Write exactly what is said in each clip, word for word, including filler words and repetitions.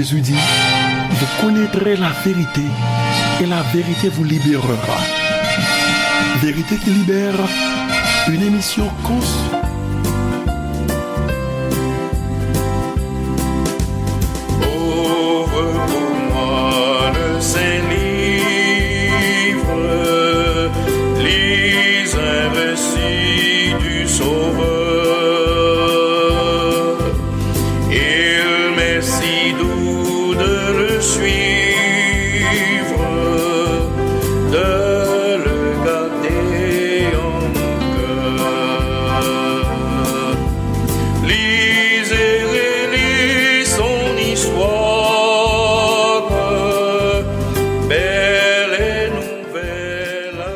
Jésus dit, vous connaîtrez la vérité et la vérité vous libérera. Vérité qui libère, une émission cons- Ouvre pour moi le Saint-Livre, lis un récit du Sauveur. Il m'est si doux de le suivre, de le garder en mon cœur. Lis et relis son histoire, belle et nouvelle à la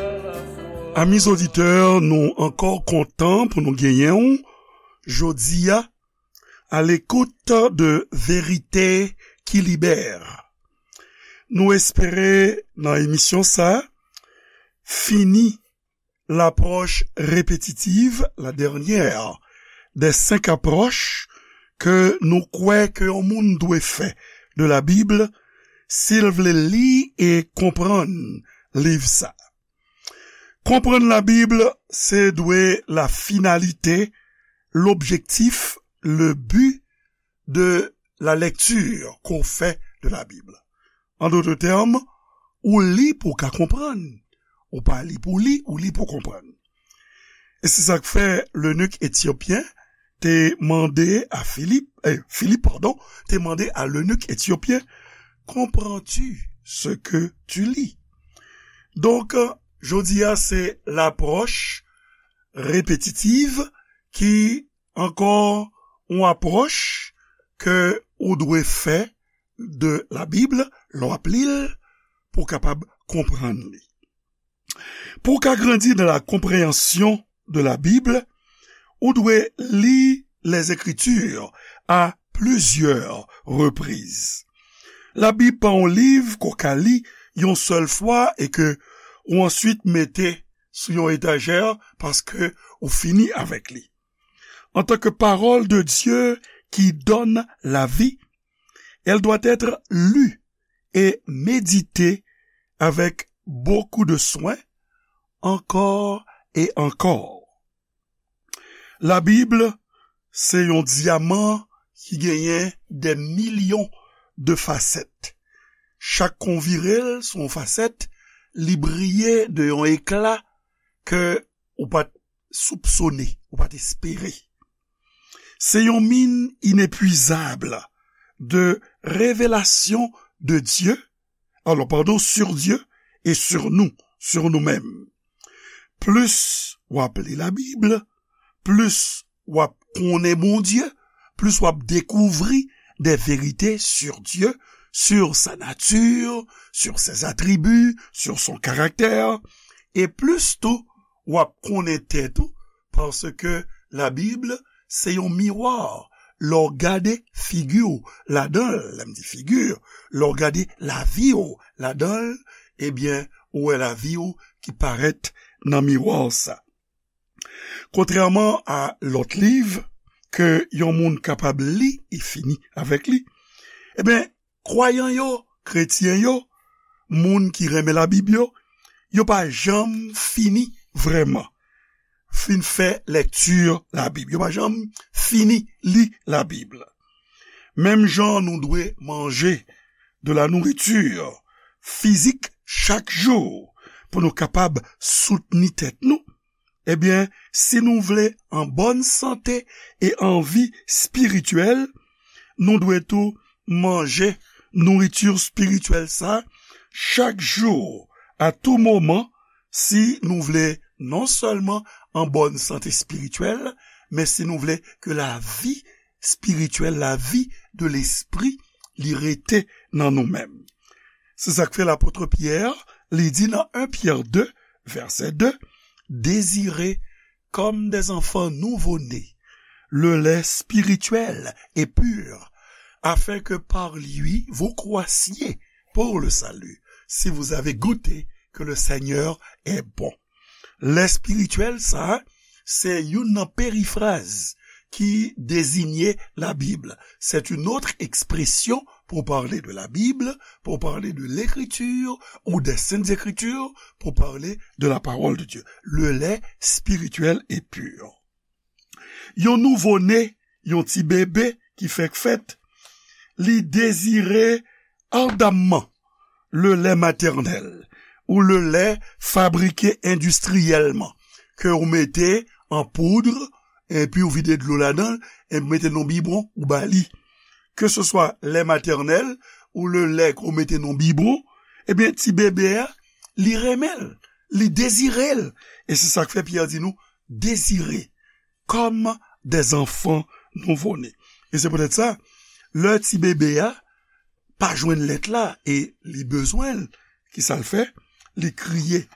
fois. Amis auditeurs, nou ankò kontan pou nou genyen w jodi a, à l'écoute de Vérité qui libère. Nou espere nan emisyon sa fini l'approche répétitive, la dernière des cinq approches ke nou kwè ke yon moun dwe fè de la Bible si l vle li e konprann liv sa. Konprann la Bib, se dwe la finalité, l'objectif, le but de la lecture qu'on fait de la Bible. En d'autres termes, ou li pou w ka konprann. Ou pa li pou w li, ou li pou w konprann. E se sa k fè lenik etyopyen te mande a Filip, eh, Filip, padon, te mande a lenik etyopyen, comprends-tu ce que tu lis? Donk, jodi a, se lapwòch repetitiv ki ankò yon apwòch ke ou dwe fè de la Bib lè w ap li l pou w kapab konprann li. Pou w ka grandi dans la compréhension de la Bible, ou dwe li les Écritures à plusieurs reprises. La Bib pa yon liv ke w ka li yon sèl fwa e ke ou answit mete sou yon etajè paske ou fini avèk li. En tant que parole de Dieu qui donne la vie, elle doit être lue et méditée avec beaucoup de soin, encore et encore. La Bib, se yon dyaman ki genyen des millions de facettes. Chak kou w vire l sou yon fasèt, li briye de yon ekla ke ou pa t soupsone, ou pa t espere. Se yon mine inépuisable de révélations de Dieu, alors, pardon, sur Dieu et sur nous, sur nous-mêmes. Plis w ap li la Bib, plis w ap konnen Bondye, plis w ap dekouvri des vérités sur Dieu, sur sa nature, sur ses attributs, sur son caractère, e plis tou w ap konnen tèt ou, paske la Bib se yon miwa. Lè w gade figi w ladan l, lè m di figi, lè w gade lavi w ladan l, ebyen, ou wè lavi w ki parèt nan miwa sa. Kontrèman a lòt liv ke yon moun kapab li e fini avèk li, ebyen, kwayan yo, kretyen yo, moun ki renmen la Bib yo, yo pa janm fini vrèman fin fè lèkti la Bib. Yo pa janm fini li la Bib. Menm jan nou dwe manje de la nourriture physique chak jou pou nou kapab soutni tèt nou, ebyen, si nou vle an bòn sante e an vi espirityèl, nou dwe tou manje nouriti espirityèl sa chak jou, à tout moment, si nou vle non sèlman an bòn sante espirityèl, men si nou vle ke lavi espirityèl, lavi de lespri, li rete nan nou menm. Se sa k fè lapot Pyè, li di nan en Pyè de, vèsè de, désirez comme des enfants nouveau-nés, le lait spirituel et pur, afin que par lui vous croissiez pour le salut, si vous avez goûté que le Seigneur est bon. Lè espirityèl sa, se youn nan perifraz ki dezinye la Bib. C'est une autre expression pour parler de la Bible, pour parler de l'Écriture ou des Saintes Écritures, pour parler de la parole de Dieu. Le lait spirituel et pur. Yon nouvo ne, yon ti bebe ki fèk fèt, li dezire ardamman le lait maternel ou le lait fabriqué industriellement, ke ou mete an poud, epi ou vide dlo ladan l, epi mete nan bibwon, ou ba li. Ke se swa lè matènèl ou le lè ke w mete nan bibwon, ebyen, ti bebe a, li renmen l, li dezire l. E se sa k fè Pyè di nou, désirez comme des enfants nouveau-nés. E se poutèt sa, lè ti bebe a pa jwenn lèt la e li bezwen l, ki sa l fè? Li kriye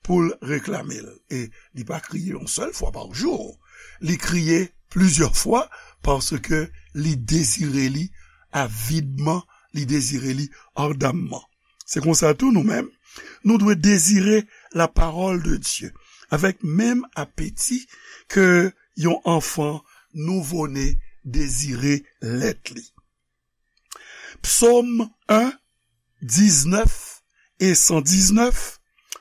pou l reklame l. E li pa kriye yon sèl fwa pa jou. Li kriye plizyè fwa paske li dezire li avidman, li dezire li ardamman. Se konsa tou nou menm, nou dwe dezire la parole de Dieu avèk menm apeti ke yon anfan nouvo-ne dezire lèt li. Psaume un, dix-neuf et cent dix-neuf,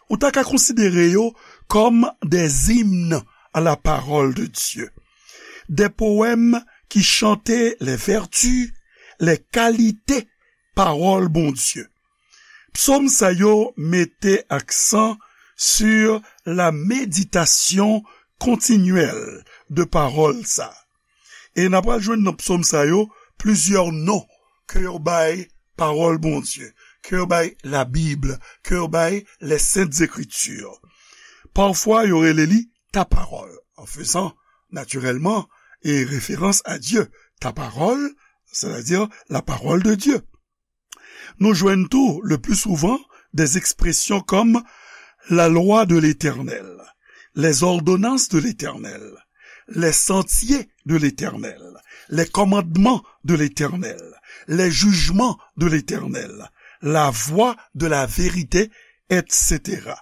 ou ta ka konsidere yo comme des hymnes à la parole de Dieu. Des poèmes qui chantaient les vertus, les qualités pawòl Bondye. Psaume sa yo mete aksan sur la méditation continuelle de pawòl sa. E n ap pral jwenn nan psaume sa yo plizyè non ke yo bay pawòl Bondye, ke yo bay la Bible, ke yo bay les Saintes Écritures. Pafwa, yo rele li ta parole, en faisant naturellement et référence à Dieu. Ta parole, c'est-à-dire la parole de Dieu. Nou jwenn tou, le plus souvent, des expressions comme la loi de l'Éternel, les ordonnances de l'Éternel, les sentiers de l'Éternel, les commandements de l'Éternel, les jugements de l'Éternel, la voie de la vérité, et cetera.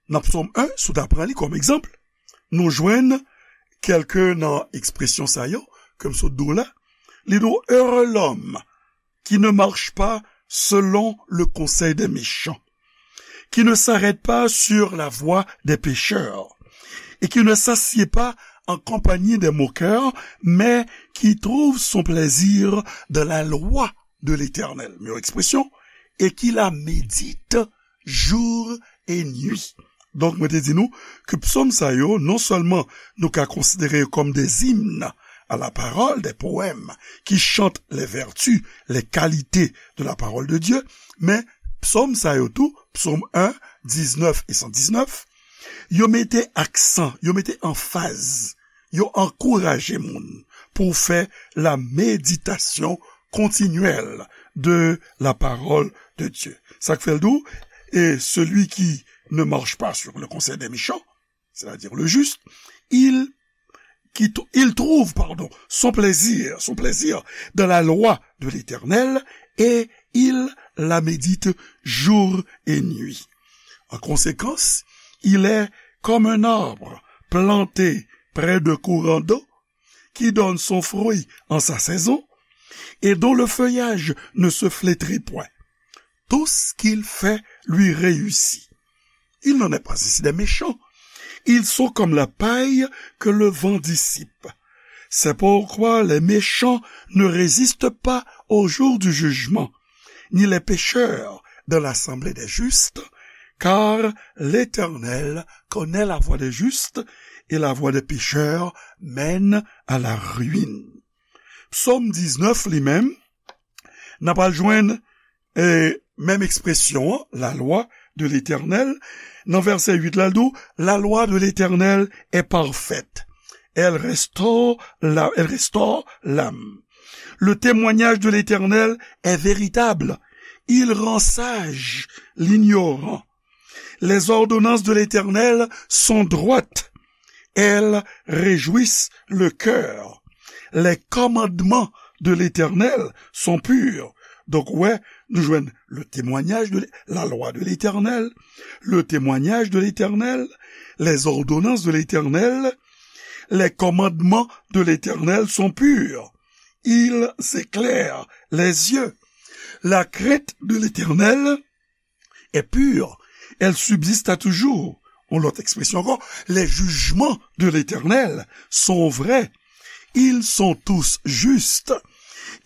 Nan Psaume un, si w ta pran li kòm egzanp, nou jwenn kèlke nan ekspresyon sa yo, ke m sot di w la. Li di w, heureux l'homme qui ne marche pas selon le conseil des méchants, qui ne s'arrête pas sur la voie des pécheurs, et qui ne s'assied pas en compagnie des moqueurs, mais qui trouve son plaisir dans la loi de l'Éternel. Meilleure expression, et qui la médite jour et nuit. Donk, mwen te di nou ke psaume sa yo, non sèlman nou ka konsidere yo kòm des hymnes à la parole, des poèmes qui chantent les vertus, les qualités de la parole de Dieu, men psaume sa yo tou, psaume un, dix-neuf et cent dix-neuf, yo mete aksan, yo mete anfaz, yo ankouraje moun pou fè la méditation continuelle de la parole de Dieu. Sa k fè l di w, et celui qui ne marche pas sur le conseil des méchants, c'est-à-dire le juste, il, qui, il trouve, pardon, son plaisir, son plaisir dans la loi de l'Éternel et il la médite jour et nuit. En conséquence, il est comme un arbre planté près de courant d'eau qui donne son fruit en sa saison et dont le feuillage ne se flétrit point. Tout ce qu'il fait lui réussit. Il n'en est pas ainsi des méchants. Ils sont comme la paille que le vent dissipe. C'est pourquoi les méchants ne résistent pas au jour du jugement, ni les pécheurs dans l'assemblée des justes, car l'Éternel connaît la voie des justes et la voie des pécheurs mène à la ruine. Psaume dix-neuf li menm, n ap al jwenn, e, menm ekspresyon an, la loi de l'Éternel. Nan vèsè uit la, l di w, la loi de l'Éternel est parfaite. Elle restaure la, elle restaure l'âme. Le témoignage de l'Éternel est véritable. Il rend sage l'ignorant. Les ordonnances de l'Éternel sont droites. Elles réjouissent le cœur. Les commandements de l'Éternel sont purs. Donk, ou wè, nou jwenn le témoignage de l'É-, la loi de l'Éternel, le témoignage de l'Éternel, les ordonnances de l'Éternel, les commandements de l'Éternel sont purs. ils éclairent les yeux. La crainte de l'Éternel est pure, elle subsiste à toujours. Ou lòt ekspresyon ankò, les jugements de l'Éternel sont vrais, ils sont tous justes,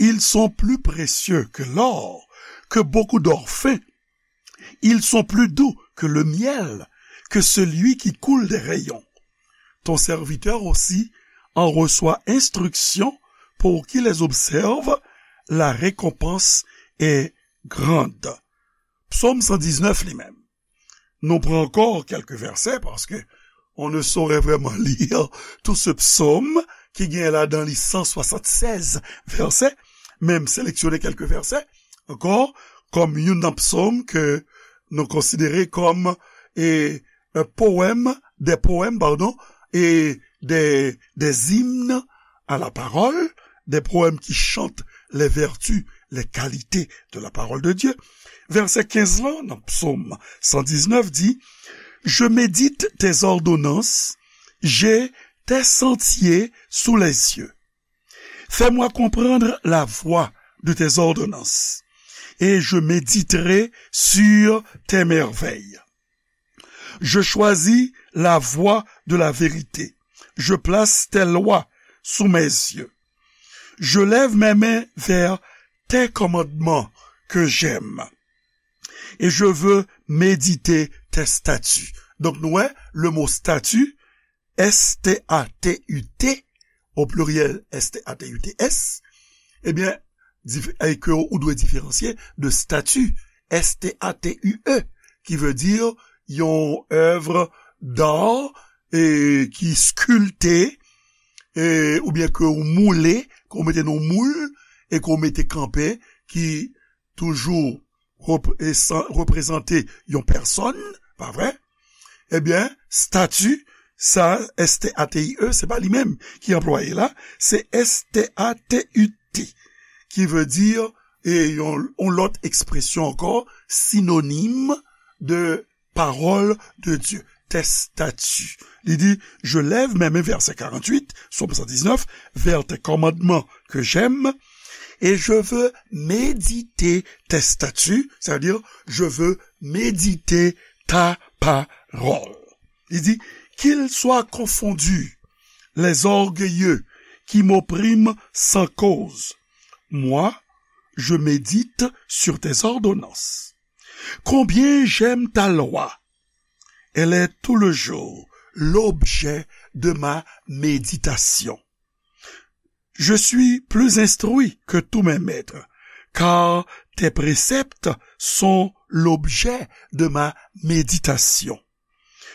ils sont plus précieux que l'or, que beaucoup d'or fin, ils sont plus doux que le miel, que celui qui coule des rayons. Ton serviteur aussi en reçoit instruction, pour qui les observe, la récompense est grande. Psaume cent dix-neuf li menm. Nou pran ankò kèk vèsè, paske on ne saurait vraiment lire tout ce psaume ki gen ladan li cent soixante-seize vèsè, men m seleksyone kèk vèsè ankò, kòm youn nan psaume ke nou konsidere kòm e, e, poèmes, des poèmes, pardon, et des, des hymnes à la parole, des poèmes qui chantent les vertus, les qualités de la parole de Dieu. Vèsè kenz lan, nan Psaume cent dix-neuf, di, Je médite tes ordonnances, j'ai tes sentiers sous les yeux. Fais-moi comprendre la voie de tes ordonnances, et je méditerai sur tes merveilles. Je choisis la voie de la vérité. Je place tes lois sous mes yeux. Je lève mes mains vers tes commandements que j'aime. Et je veux méditer tes statuts. Donk, nou wè, le mot statut, S T A T U T, au pluriel, S T A T U T S, ebyen, dif- e ke ou dwe diferansye de statu, S T A T U E, ki vle di yon èv d'art e ki skilpte, e, oubyen ke ou moule, ke ou mete nan moul, e ke ou mete kanpe, ki toujou rep- e san- reprezante yon pèsòn, pa vre? Ebyen, statu, sa, S T A T I E, se pa li menm ki anplwaye la, se S T A T U T, ki vle di, e yon, yon lòt ekspresyon ankò, sinonim de parole de Dieu, tes statuts. Li di, je lève mes mains, vèsè karanntuit, Psaume cent dix-neuf, vers tes commandements que j'aime, et je veux méditer tes statuts, c'est-à-dire, je veux méditer ta parole. Li di, qu'ils soient confondus, les orgueilleux qui m'oppriment sans cause. Moi, je médite sur tes ordonnances. Combien j'aime ta loi. Elle est tout le jour l'objet de ma méditation. Je suis plus instruit que tous mes maîtres, car tes préceptes sont l'objet de ma méditation.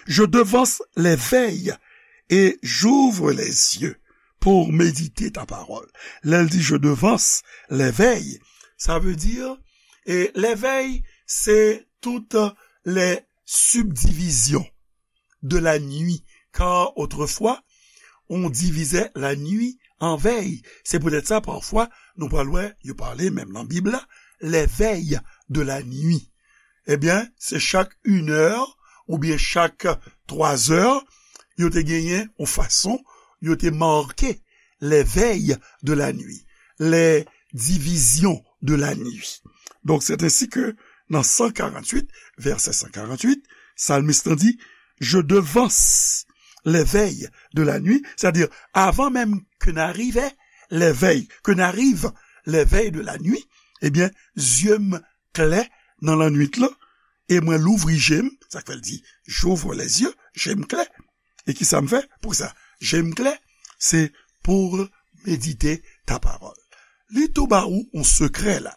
Je devance les veilles et j'ouvre les yeux pour méditer ta parole. Lè l di je devance les veilles, sa vle di, e les veilles, se toutes les subdivisions de la nuit, car autrefois, on divisait la nuit en veilles. Se poutèt sa, pafwa, nou pral wè, yo pale menm nan Bib la, les veilles de la nuit. Ebyen, se chak inè oubyen chak twazè, yo te genyen yon fason, yo te make les veilles de la nuit, les divisions de la nuit. Donk, c'est ainsi que nan san karanntuit, vèsè san karanntuit, salmis lan di, je devance les veilles de la nuit, c'est-à-dire, avan menm ke n arive, les veilles, ke n arive, les veilles de la nuit, ebyen, zye m klè nan lannwit lan, e mwen louvri je m, sa k fè l di, j'ouvre les yeux, je m klè. E kisa m fè? Poukisa je m klè? C'est pour méditer ta parole. Li tou ba ou yon sekrè la.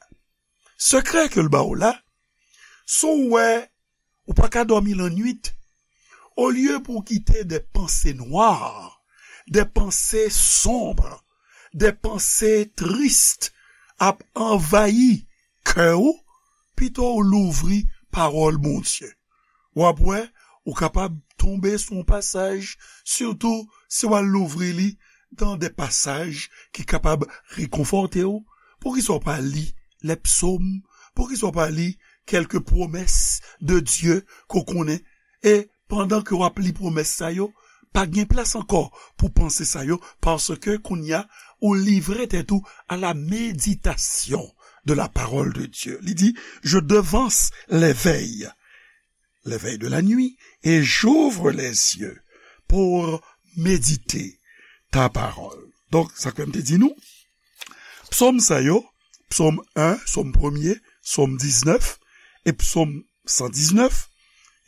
Sekrè ke l ba ou la, si w wè ou pa ka dòmi lannwit, olye pou w kite des pensées noires, des pensées sombres, des pensées tristes ap anvayi kè w, pito w louvri pawòl Bondye. W ap wè, ou kapab tonbe sou yon pasaj, sitou si w al louvri li dans des passages ki kapab rekonfòte w. Poukisa w pa li les psaumes? Poukisa w pa li quelques promesses de Dieu ke w konnen? E pandan ke w ap li pwomès sa yo, pa gen plas ankò pou panse sa yo, paske kounye a, ou livre tèt ou à la méditation de la parole de Dieu. Li di, je devance les veilles, les veilles de la nuit, et j'ouvre les yeux pour méditer ta parole. Donk, sa ke m te di nou, psòm sa yo, psòm en, psòm premye, psòm diznèf e psòm san diznèf,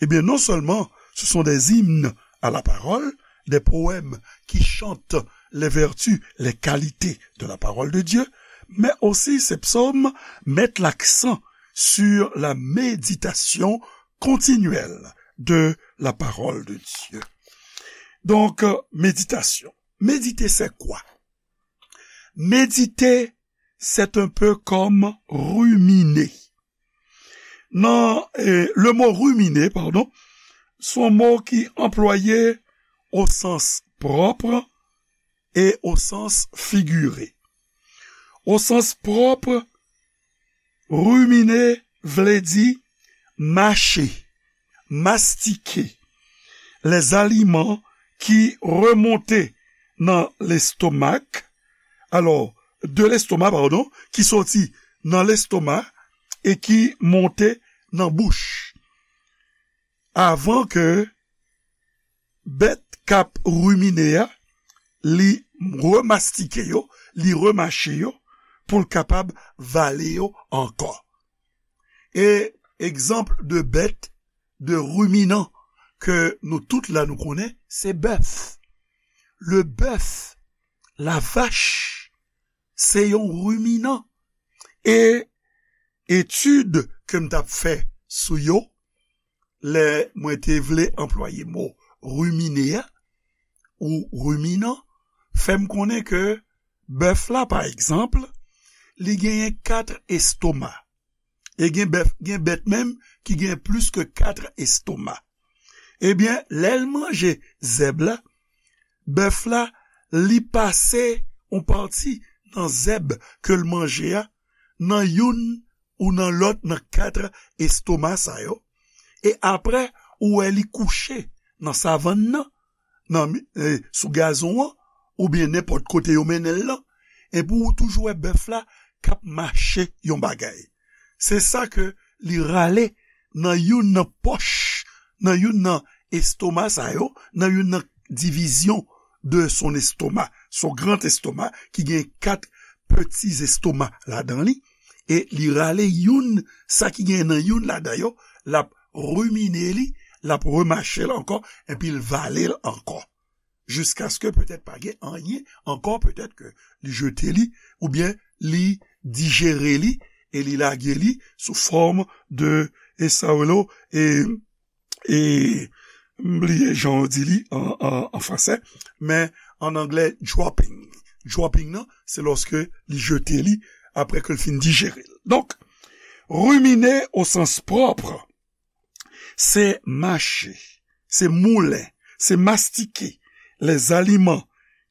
eh bien, non seulement ce sont des hymnes à la parole, des poèmes qui chantent les vertus, les qualités de la parole de Dieu, mais aussi ces psaumes mettent l'accent sur la méditation continuelle de la parole de Dieu. Donc, euh, méditation. Méditer, c'est quoi? Méditer, c'est un peu comme ruminer. Non, eh, le mot ruminer, pardon, c'est un mot qui est employé au sens propre et au sens figuré. Au sens propre, ruminer vle di mache, mastike, les aliments qui remontent dans l'estomac, alors, de l'estomac, pardon, ki soti nan lestoma e ki monte nan bouch. Avan ke bèt k ap rimine a, li remastike yo, li remache yo, pou l kapab vale yo ankò. E egzanp de bèt, de ruminant ke nou tout la nou konnen, se bèf. Le bèf, la vach, se yon ruminant. E etid ke m t ap fè sou yo, lè mwen te vle anplwaye mo rimine a, ou ruminant, fè m konnen ke bèf la, pa egzanp, li genyen kat estoma. E gen bèf, gen bèt menm ki gen plis ke kat estoma. Ebyen, lè l manje zèb la, bèf la, li pase yon pati nan zèb ke l manje a, nan youn ou nan lòt nan kat estoma sa yo. E apre, ou wè li kouche nan savann nan, nan mi-, eh, sou gazon an, oubyen nenpòt kote yo mennen l lan, epi ou toujou wè bèf la k ap mache yon bagay. Se sa ke li rale nan youn nan pòch, nan youn nan estoma sa yo, nan youn nan divizyon de son estoma, son grand estomac, ki gen kat peti estoma ladan li, e li rale youn, sa ki gen nan youn ladan yo, l ap rimine li, l ap remache l ankò, epi l vale l ankò. Jiskaske petèt pa gen anyen ankò, petèt ke li jete li, oubyen li dijere li, e li lage li sou fòm de, e sa yo rele, e, e, m bliye jan yo di li an, an, an fransè, men an anglè, dropping. Dropping nan, se lòske li jete li apre ke l fin dijere l. Donk, ruminer au sens propre, se mache, se moulen, se mastike les aliments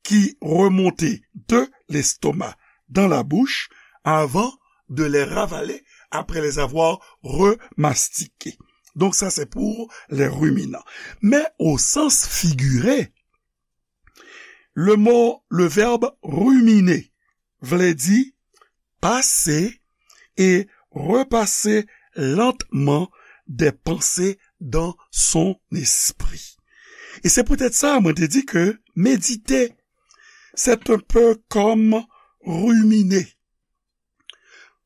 qui remontaient de l'estomac dans la bouche avant de les ravaler après les avoir remastiqués. Donc ça, c'est pour les ruminants. Mais au sens figuré, le mot, le verbe ruminer vle di pase e repase lantman des pensées dans son esprit. E se poutèt sa, mwen te di ke medite, c'est un peu comme ruminer.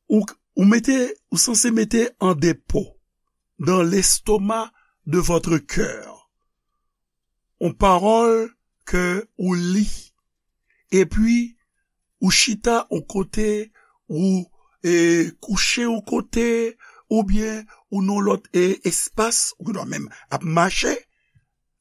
Ou, ou mete, ou sanse mete an depo dans l'estomac de votre cœur yon pawòl ke ou li, epi ou chita yon kote, ou, e, kouche yon kote, oubyen ou nan lòt, e, espas, ou gendwa menm ap mache,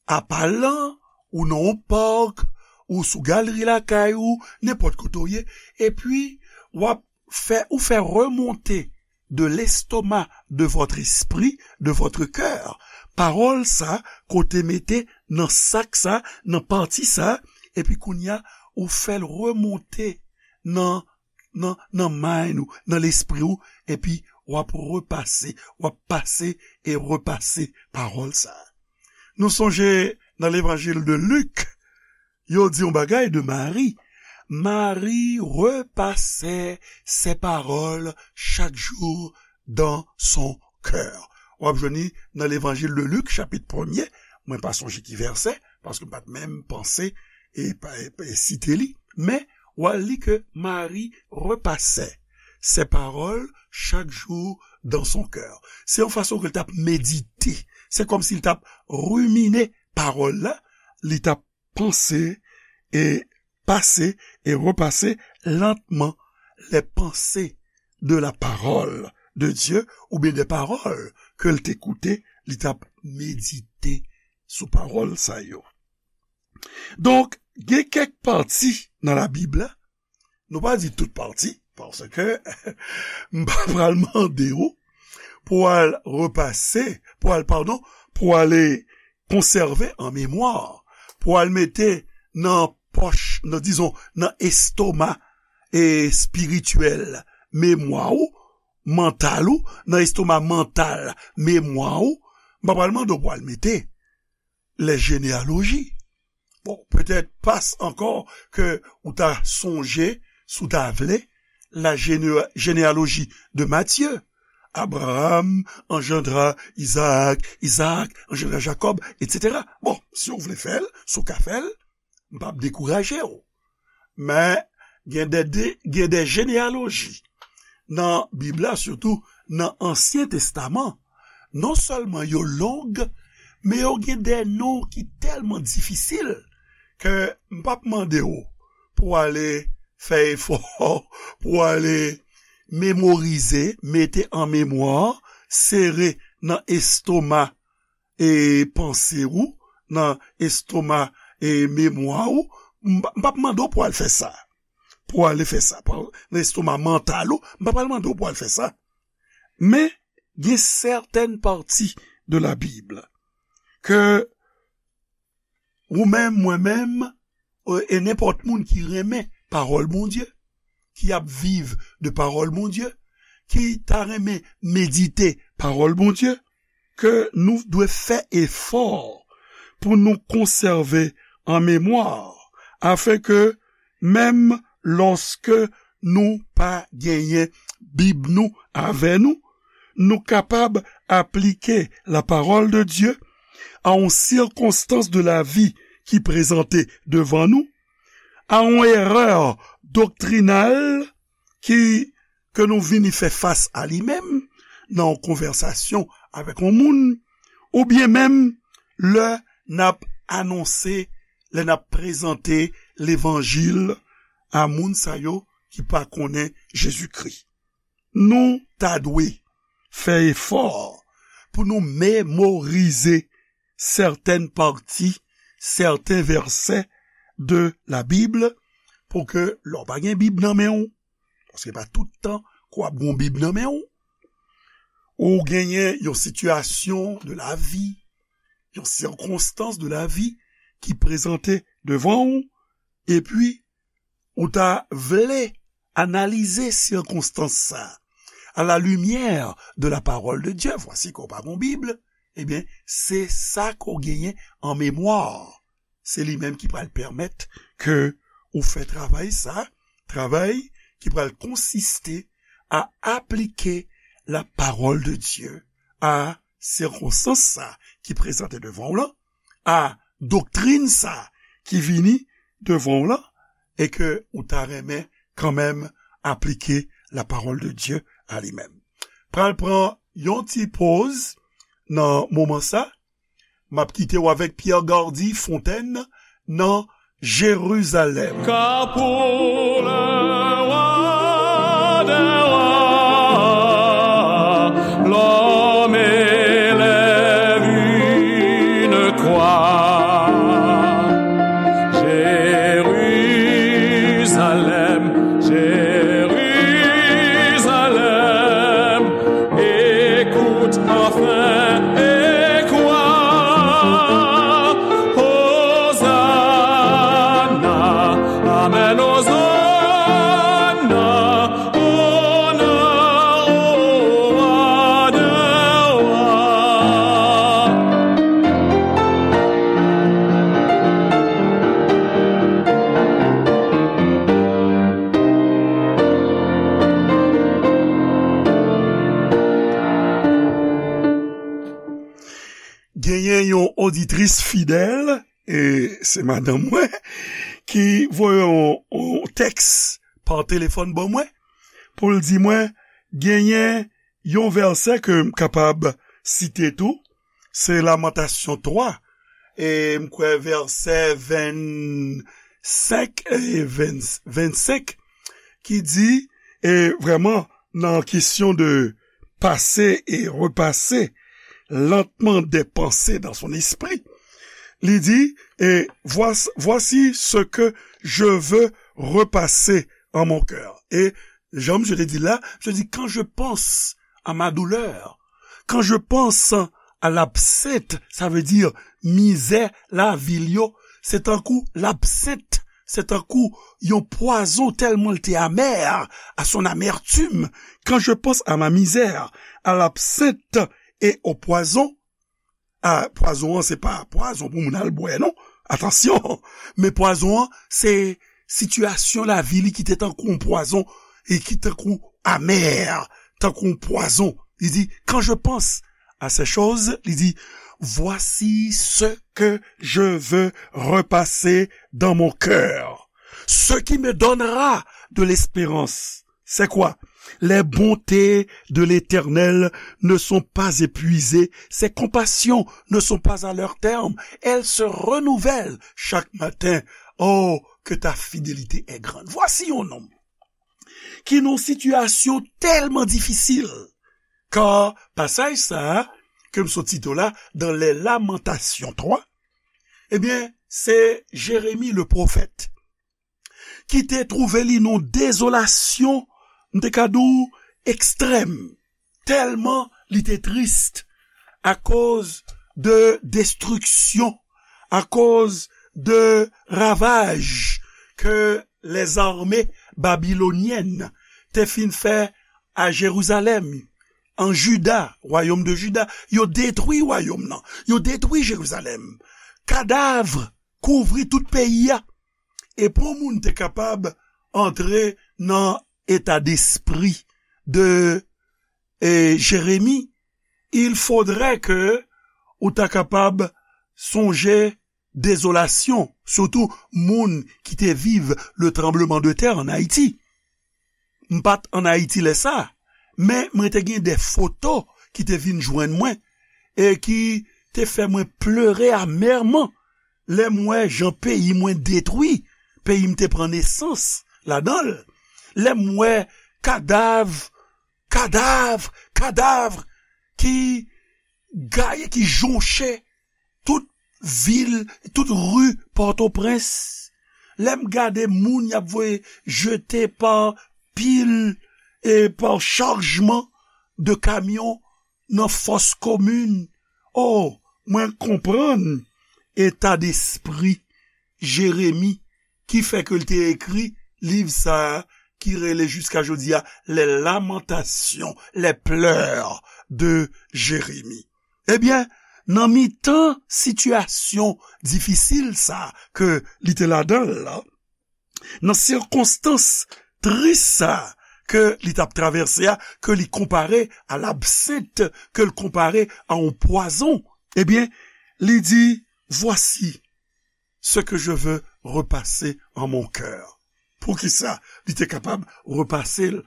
apa lan, ou nan yon pak, ou sou galri lakay ou, nenpòt kote w ye, epi w ap fè, ou fè remonte de l'estomac de votre esprit, de votre cœur. Pawòl sa, kote mete nan sak sa, nan pati sa, epi kounye a, ou fè l remonte nan, nan, nan mind ou, nan lespri ou, epi w ap repase, w ap pase e repase pawòl sa. Nou sonje nan levanjil de Lik, yo di yon bagay de Mari. Marie repassait ces paroles chaque jour dans son cœur. W ap jwenn li nan Levanjil de Lik, chapit premye. Mwen pa sonje ki vèsè, paske m pa t menm panse e, pa- e, e site li. Men, w al li ke Marie repassait ces paroles chaque jour dans son cœur. Se yon fason ke l t ap medite. Se kòmsi l t ap rimine pawòl la, li t ap panse et passer et repasser lentement les pensées de la parole de Dieu, oubyen de pawòl ke l te koute, li t ap medite sou pawòl sa yo. Donk, gen kèk pati nan Labib la, nou pa di tout pati, paske m pa pral mande w pou al repase, pou al, padon, pou ale konsève an memwa, pou al mete nan pòch, nan, dizon, nan estoma espirityèl memwa w, mantal ou, nan estoma mantal memwa w, m pa pral mande w pou al mete les généalogies. Bon, petèt pas ankò ke ou ta sonje, si w ta vle, la géné- généalogie de Matthieu. Abraham engendra Isaac, Isaac engendra Jacob, et cetera. Bon, si w vle fè l, si w ka fè l, m p ap dekouraje w. Men, gen de, de, gen de jeneyaloji nan Bib la, sitou nan Ansyen Testaman. Non sèlman yo long, men yo gen de non ki tèlman difisil ke m p ap mande w pou w ale fè efò, pou w ale memorize, mete an memwa, sere nan estoma e panse w, nan estoma e memwa w. M p ap mande w pou w al fè sa. Pou w ale fè sa. Nan estoma mantal ou, m p ap al mande w pou w al fè sa. Men, gen sètèn pati de la Bib ke ou menm, mwen menm, e nenpòt moun ki renmen pawòl Bondye, ki ap viv de pawòl Bondye, ki ta renmen medite pawòl Bondye, ke nou dwe fè efò pou nou konsève an memwa, afenke menm lòske nou pa genyen Bib nou avè nou, nou kapab aplike la parole de Dieu à yon sirkonstans de lavi ki prezante devan nou, a yon erè doktrinal ki, ke nou vini fè fas a li menm nan yon konvèsasyon avèk yon moun, oubyen menm lè n ap anonse, lè n ap prezante levanjil a moun sa yo ki pa konnen Jezikri. Nou ta dwe fè efò pou nou memorize sètèn pati, sèten vèsè de la Bib, pou ke lè w pa gen Bib nan men w, paske pa tout tan ke w ap gen yon Bib nan men w, ou genyen yon sitiyasyon de lavi, yon sirkonstans de lavi ki prezante devan w, epi ou ta vle analize sirkonstans sa a, à la lumière de la parole de Dieu, vwasi ke w pa gen Bib, ebyen, se sa ke w genyen an memwa. Se li menm ki pral pèmèt ke ou fè travay sa, travay ki pral konsiste a aplike la parole de Dieu a sirkonstans sa ki prezante devan w lan, a doktrin sa ki vini devan w lan, e ke ou ta renmen kanmenm aplike la parole de Dieu a li menm. Pral pran yon ti poz nan moman sa. M ap kite w avèk Pierre Gardy Fontaine nan Jérusalem. Car pour le roi des rois, l'homme élève une croix. Jérusalem, Jérusalem, écoute enfin et crois. Hosanna, amen, Hosanna. Genyen yon oditris fidèl, e se madanm mwen, ki voye yon, yon tèks pa telefòn ban mwen, pou l di mwen, genyen yon vèsè ke m kapab site tou, se Lamantasyon twa, e m kwè vèsè vennsenk e venn, vennsenk, ki di, e vrèman, nan kesyon de passer et repasser lentement des pensées dans son esprit, li di, et voici, voici ce que je veux repasser en mon cœur. Et, jan je te di la, je dis, quand je pense à ma douleur, quand je pense à l'absinthe, sa vle di mizè lavi l yo, se tankou l'absinthe, se tankou yon pwazon tèlman l te amè, à son amertume. Quand je pense à ma misère, à l'absinthe et au poison, a, pwazon an, se pa pwazon pou moun al bwè, non. Atansyon. Men pwazon an, se sitiyasyon lavi li ki te tankou yon pwazon e ki tankou amè, tankou yon pwazon. Li di, quand je pense à ces choses, li di, voici ce que je veux repasser dans mon cœur. Ce qui me donnera de l'espérance. C'est quoi? Les bontés de l'Éternel ne sont pas épuisées, ses compassions ne sont pas à leur terme, elles se renouvellent chaque matin. Oh, que ta fidélité est grande. Voici yon nonm ki nan yon sitiyasyon tèlman difisil, ka pasaj sa a ke m sot site w la, dans les Lamentations trois, ebyen, se Jeremi le pwofèt ki te twouve li nan dezolasyon, m te ka di w, ekstrèm, tèlman li te tris akoz de destriksyon, akoz de ravaj ke lèzame babilonyèn te fin fè a Jerizalèm, an Jida, wayòm de Jida. Yo detwi wayòm nan, yo detwi Jerizalèm. Kadav kouvri tout peyi a. E pou moun te kapab antre nan eta despri de, e, Jeremi, il faudrait que ou ta kapab sonje dezolasyon, sitou moun ki te viv le tranbleman de tè an Ayiti. M pa t an Ayiti lè sa, men mwen te gen de foto ki te vin jwenn mwen e ki te fè mwen plere amèman lè m wè jan peyi mwen detwi, peyi m te pran nesans ladan l. Lè m wè kadav, kadav, kadav ki gaye, ki jonche tout vil, tout ri Pòtoprens. Lè m gade moun y ap voye jete pa pil e pa chajman de kamyon nan fòs komin. O, mwen konprann eta despri Jeremi ki fè ke l te ekri liv sa a ki rele jiska jodi a Les Lamentations, les pleurs de Jérémie. Ebyen, nan mitan sitiyasyon difisil sa a ke li te ladan l la, nan sikonstans tris sa a ke li t ap travèse a, ke li konpare a labsent, ke l konpare a yon pwazon, ebyen, li di, voici ce que je veux repasser en mon cœur. Poukisa li te kapab repase l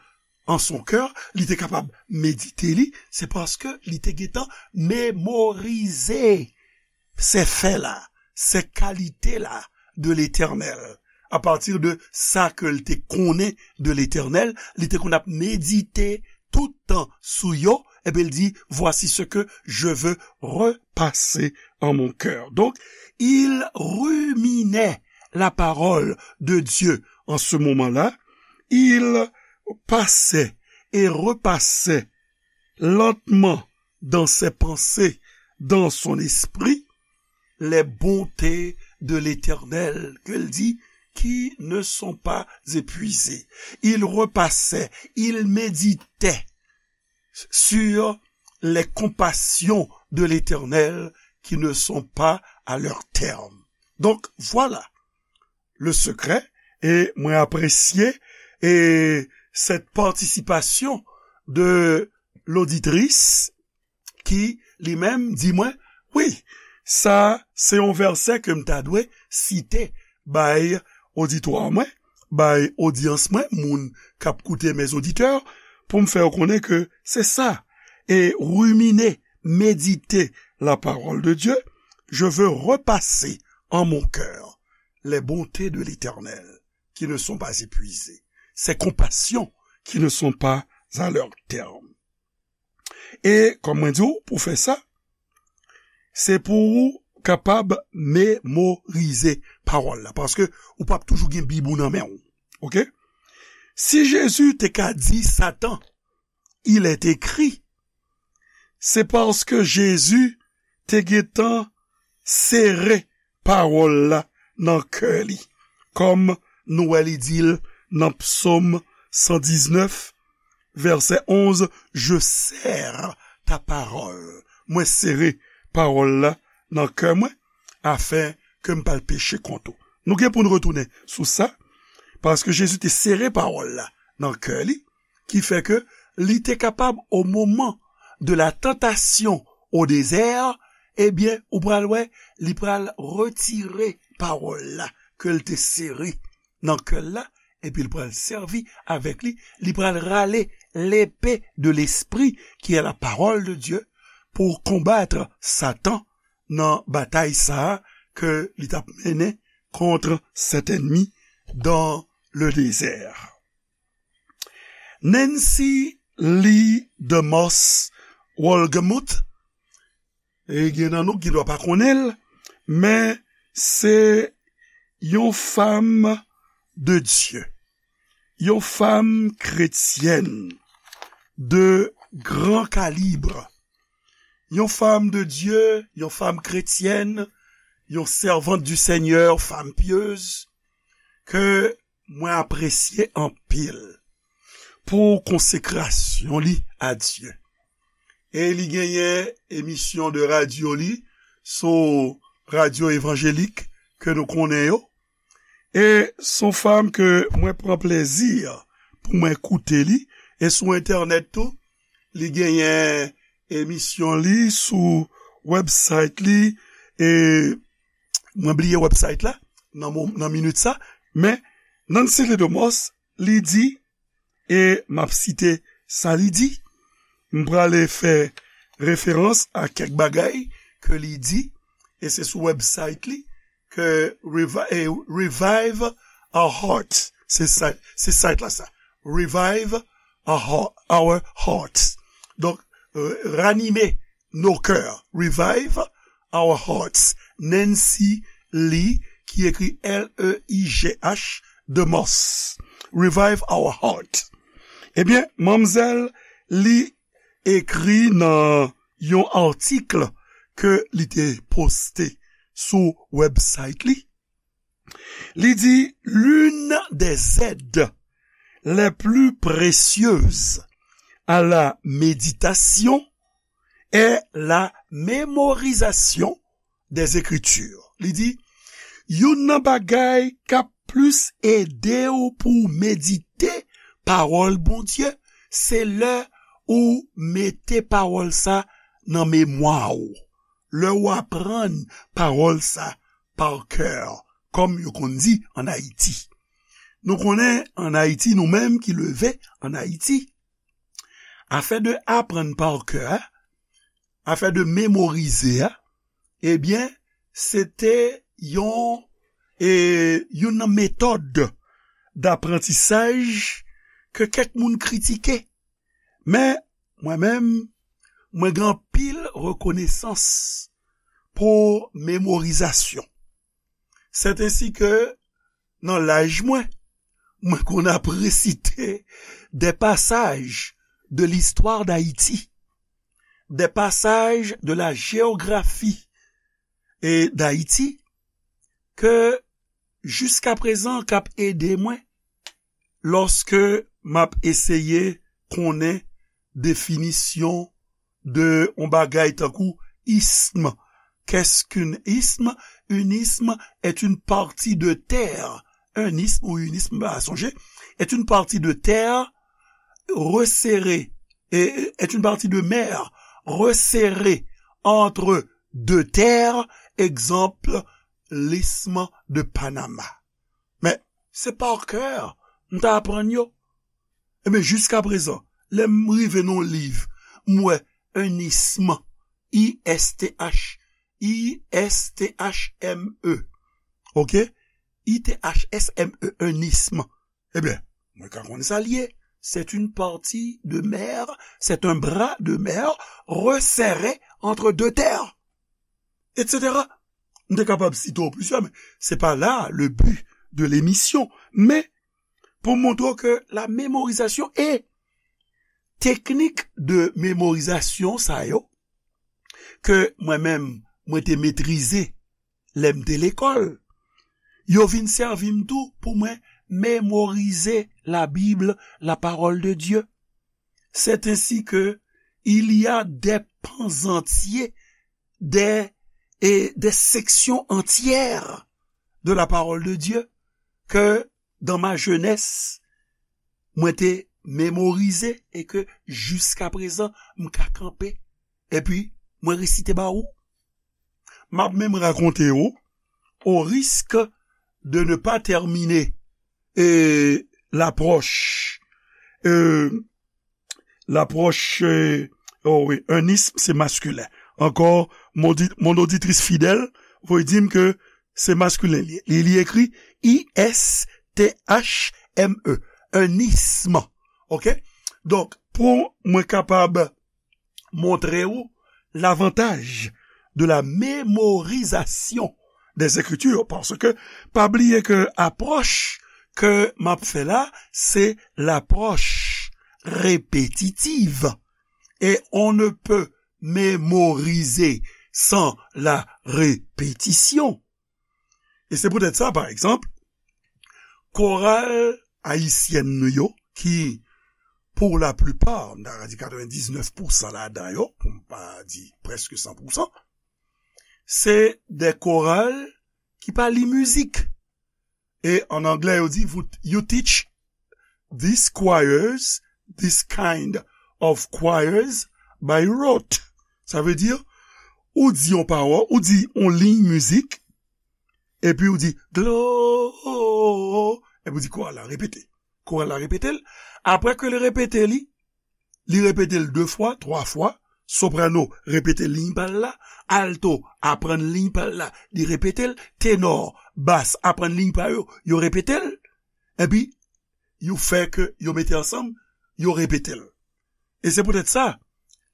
an son kè, li te kapab medite li, se paske li te gentan memorize se fè la, se kalite la de Letènèl. Apati de sa ke l te konnen de Letènèl, li te konn ap medite tout tan sou yo, ebyen, l di, voici ce que je veux repasser en mon cœur. Donc, il ruminait la parole de Dieu en ce moment-là. Il passait et repassait lentement dans ses pensées, dans son esprit, les bontés de l'Éternel, ke l di, qui ne sont pas épuisées. Il repassait, il méditait sur les compassions de l'Éternel qui ne sont pas à leur terme. Donc, voilà le secret, e mwen apresye e cette participation de l'auditrice ki li menm di mwen, Wi, sa se yon vèsè ke m ta dwe site bay oditwa mwen, bay odyans mwen, moun k ap koute, mes auditeurs, pou m fè yo konnen ke se sa. Et ruminer, méditer la parole de Dieu, je veux repasser en mon cœur les bontés de l'Éternel qui ne sont pas épuisées, ses compassions qui ne sont pas à leur terme. E, kòm mwen di w, pou fè sa, se pou ou kapab memorize pawòl la, paske ou p ap toujou gen Bib ou nan men w. Oke? Si Jezi te ka di Satan, il est écrit, se paske Jezi te gentan sere pawòl la nan kè li. Kòm nou wè li di l nan Psaume cent dix-neuf, verset onze, je serre ta parole. Mwen sere pawòl la nan kè mwen, afin ke m pa al peche kont ou. Nou gen pou n retounen sou sa, paske Jezi te sere pawòl la nan kè li, ki fè ke li te kapab, au moment de la tentation au désert, ebyen, ou pral wè, li pral retire pawòl la ke l te sere nan kè l la, epi l pral sèvi avèk li, li pral rale l'épée de l'esprit, qui est la parole de Dieu, pou konbat Satan nan batay sa a ke li t ap mennen contre cet ennemi dans le désert. Nancy Lee DeMoss Wolgemuth, e gen nan nou ki dwa pa konnen l, men se yon fanm de Dye, yon fanm kretyèn de gran kalib, yon fanm de Dye, yon fanm kretyèn, yon servante du Seigneur, fanm pyez, ke mwen apresye anpil pou konsekrasyon li a Dye. E li genyen emisyon de radyo li sou radyo evanjelik ke nou konnen yo. E s on fanm ke mwen pran plezi pou mwen koute li. E sou entènèt tou, li genyen emisyon li sou website li. E mwen bliye website la nan, mo- nan minit sa. Men Nancy Lee DeMoss, li di, e m ap site sa li di, m prale fè referans a kèk bagay ke li di, e se sou website li ke Revi- eh, Revive Our Hearts, se sa- se site la sa, Revive Our, Heart- Our Hearts. Donk, euh, ranime nos cœurs, Revive Our Hearts, Nancy Lee, ki ekri L E I G H, DeMoss, Revive Our Heart. Ebyen, manmzèl li ekri nan yon atik ke li te poste sou website li. Li di, l'une des aides les plus précieuses à la méditation est la mémorisation des Écritures. Li di, youn nan bagay k ap plis ede w pou w medite pawòl Bondye, se lè ou mete pawòl sa nan memwa w. Lè w aprann pawòl sa pa kè, kòm yo konn di ann Ayiti. Nou konnen ann Ayiti, nou menm ki leve ann Ayiti, afè de aprann pa kè a, afè de memorize a, ebyen, se te yon, e, youn nan metòd daprantisaj ke kèk moun kritike. Men, mwen menm, mwen gen anpil rekonesans pou memorizasyon. Sètensi ke nan laj mwen, mwen konn ap resite des passages de l'histoire d'Haïti, des passages de la géographie et d'Haïti, ke jiskaprezan k ap ede mwen lòske m ap eseye konnen definisyon de yon bagay tankou ism. Qu'est-ce qu'un isme? Un isme est une partie de terre. Un isme ou une isme, pa sonje, est une partie de terre resserrée, et est une partie de mer resserrée entre de terre, egzanp, l'isthme de Panama. Men, se pa kè m ta aprann yo. Ebyen, jiska prezan, lè m rive nan yon liv, m wè un isthme, I S T H, I S T H M E. Oke? I T H S M E, un isthme. Ebyen, mwen ka konn sa l ye. C'est une partie de mer, c'est un bras de mer resserré entre deux terres, et cetera. M te kapab site w plizyè, men se pa la le but de l'émission. Men, pou montre w ke la mémorisation e teknik de mémorisation sa yo, ke mwen menm, mwen te metrize lè m te lekòl, yo vin sèvi m tou pou mwen mémoriser la Bible, la parole de Dieu. C'est ainsi que il y a des pans entiers, des, et des sections entières de la parole de Dieu que dans ma jeunesse, mwen te mémorize e ke jiska prezan, m ka kanpe epi mwen resite ba ou. M ap menm rakonte ou, au risque de ne pas terminer, e, l'approche, e, l'approche, e, oh wi, un isthme, se maskilen. Ankò, mon di-, mon oditris fidèl voye di m ke se maskilen li ye. Li, li ekri I S T H M E, un isthme. Oke? Donk, pou mwen kapab montre w lavantaj de la mémorisation des Écritures, paske pa bliye ke apwòch ke m ap fè la, se l'approche répétitive. Et on ne peut mémoriser sans la répétition. E se poutèt sa, pa egzanp, koral ayisyèn nou yo, ki, pou la plipa, m ta ka di katrevendiznèf pousan ladan yo, pou m pa di prèske san pousan, se de koral ki pa li mizik. E an anglè, yo di, "You teach these choirs, this kind of choirs by rote." Sa vle di, ou di yon pawòl, ou di yon liy mizik, epi ou di, "Glo-," epi ou di, "Koral la repete." Koral la repete l. Apre ke l repete li, li repete l de fwa, twa fwa, soprano repete liy pa l la, alto aprann liy pa l la, li repete l, tenò, bas aprann liy pa yo, yo repete l, epi yo fè ke yo mete ansanm, yo repete l. E se poutèt sa,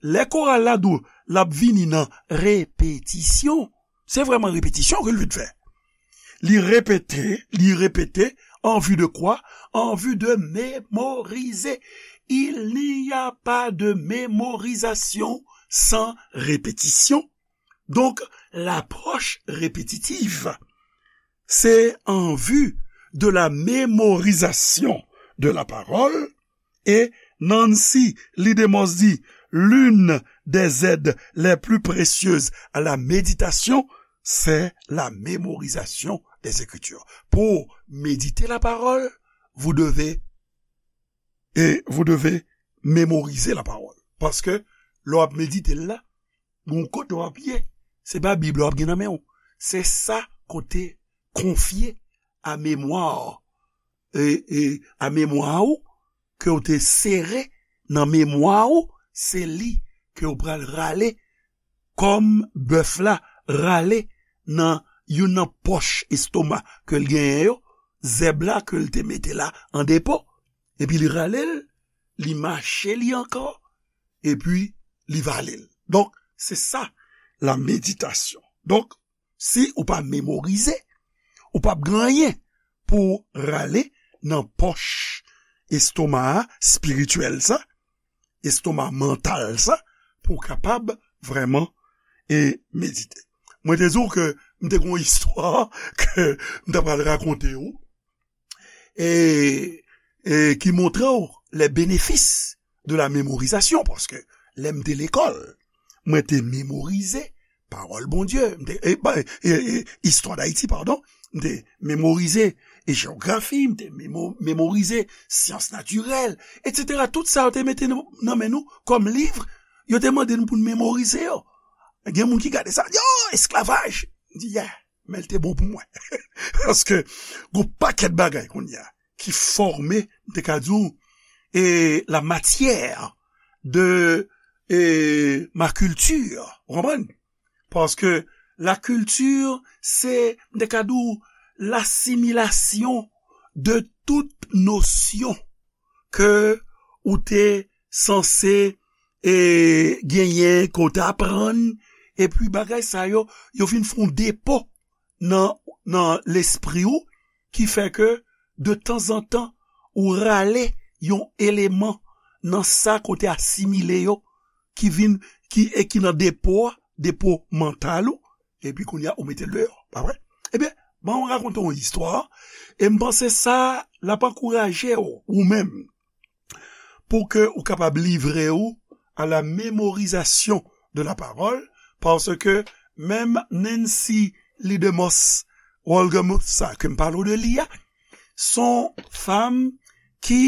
lè koral la di w l ap vini nan repetisyon, se vrèman repetisyon ke l vin fè. Li repete, li repete, en vue de quoi? En vue de mémoriser. Il n'y a pas de mémorisation sans répétition. Donc, l'approche répétitive, c'est en vue de la mémorisation de la parole. Et Nancy Lidemos dit, l'une des aides les plus précieuses à la méditation, c'est la mémorisation des Écritures. Pour méditer la parole, vous devez, et vous devez mémoriser la parole. Paske lè w ap medite l la, gon kote w ap ye. Se pa Bib la w ap gen nan men w. Se sa ke w te konfye a memwa, e, e, a memwa ou, ke w te sere nan memwa ou, se li ke w pral rale kòm bèf la rale nan youn nan pòch estoma ke l genyen yo, zèb la ke l te mete la an depo, epi li rale l, li mache li ankò, epi li vale l. Donk, se sa, la meditasyon. Donk, si ou pa memorize, ou p ap gen anyen pou w rale nan pòch estoma a, espirityèl sa, estoma mantal sa, pou w kapab vrèman, e, medite. Mwen te di w ke m te gen yon istwa ke m ta pral rakonte w, e, e ki montre w les bénéfices de la mémorisation, paske lè m te lekòl, mwen te memorize pawòl Bondye, m te, e, ba, e, e, istwa Dayiti, padon, m te memorize, e, jewografi, m te memo-, memorize syans natirèl, etsetera. Tout sa yo te mete nan, nan men nou kòm liv, yo te mande nou pou n memorize yo. Gen moun ki gade sa, di, "Oh, esklavaj!" M di, "Yeah, men l te bon pou mwen." Paske, gon pakèt bagay kounye a ki fòme, m te ka di w, e la matière de e, ma culture. Ou konprann? Paske la culture, se, m te ka di w, lasimilasyon de tout nosyon ke ou te sanse e genyen, ke w te aprann, epi bagay sa yo, yo vin fè yon depo nan, nan lespri w, ki fè ke, de tanzantan, ou rale yon eleman nan sa ke w te asimile yo, ki vin, ki, e ki nan depo a, depo mantal ou, epi kounye a, ou mete l deyò, pa vre? Ebyen, ban m rakonte yon istwa, e m panse sa, l ap ankouraje w, ou menm, pou ke ou kapab livre ou à la mémorisation de la parole, paske menm Nancy Lee DeMoss Wolgemuth sa ke m pale w de li a, se yon fanm ki,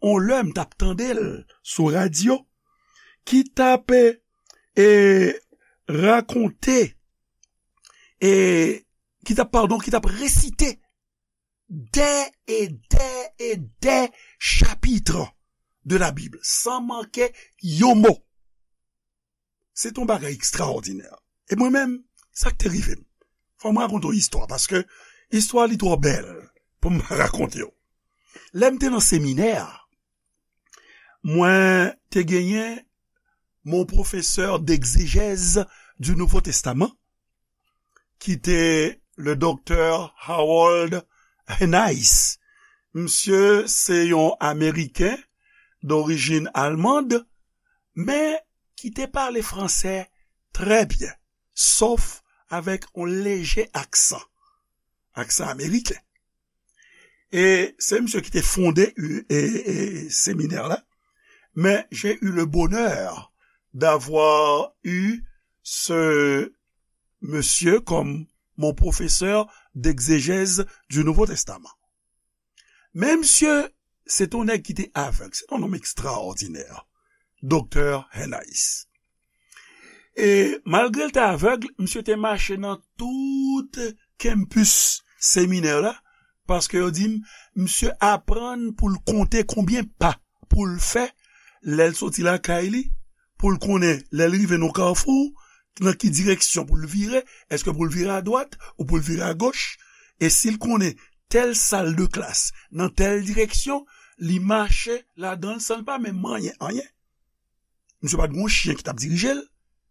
yon lè m t ap tande l sou radyo, ki t ap, e, rakonte, e, ki t ap, padon, ki t ap resite dè e dè e dè chapit de la Bib, san manke yon mo. Se t yon bagay ekstraòdinè. E mwen menm, sa k te rive m. Fò m rakonte yon istwa, paske istwa li twò bèl pou m pa rakonte w. Lè m te nan seminè a, mwen te genyen mon professeur d'exégèse du Nouveau Testament, ki te le doktè Harold Henice. Misye se yon Ameriken dorijin almand, men ki te pale franse trè byen, sof avèk yon leje aksan, aksan ameriken. E se misye ki te fonde, e, e, seminè la. Mais j'ai eu le bonheur d'avoir eu ce monsieur comme mon professeur d'exégèse du Nouveau Testament. Men misye, se t yon nèg ki te avèg, se t yon nonm ekstraòdinè, doktè Henice. E malgre l te avèg, misye te mache nan tout campus seminè la, paske yo di m, misye aprann pou l konte konbyen pa pou l fè lè l soti lakay li, pou l konnen lè l rive nan kafou, nan ki direksyon pou l vire, èske pou l vire adwat ou pou l vire agoch, e si l konnen tèl sal de klas nan tèl direksyon, li mache ladan l san l pa menm manyen anyen. Misye pa t gen yon chen ki t ap dirije l,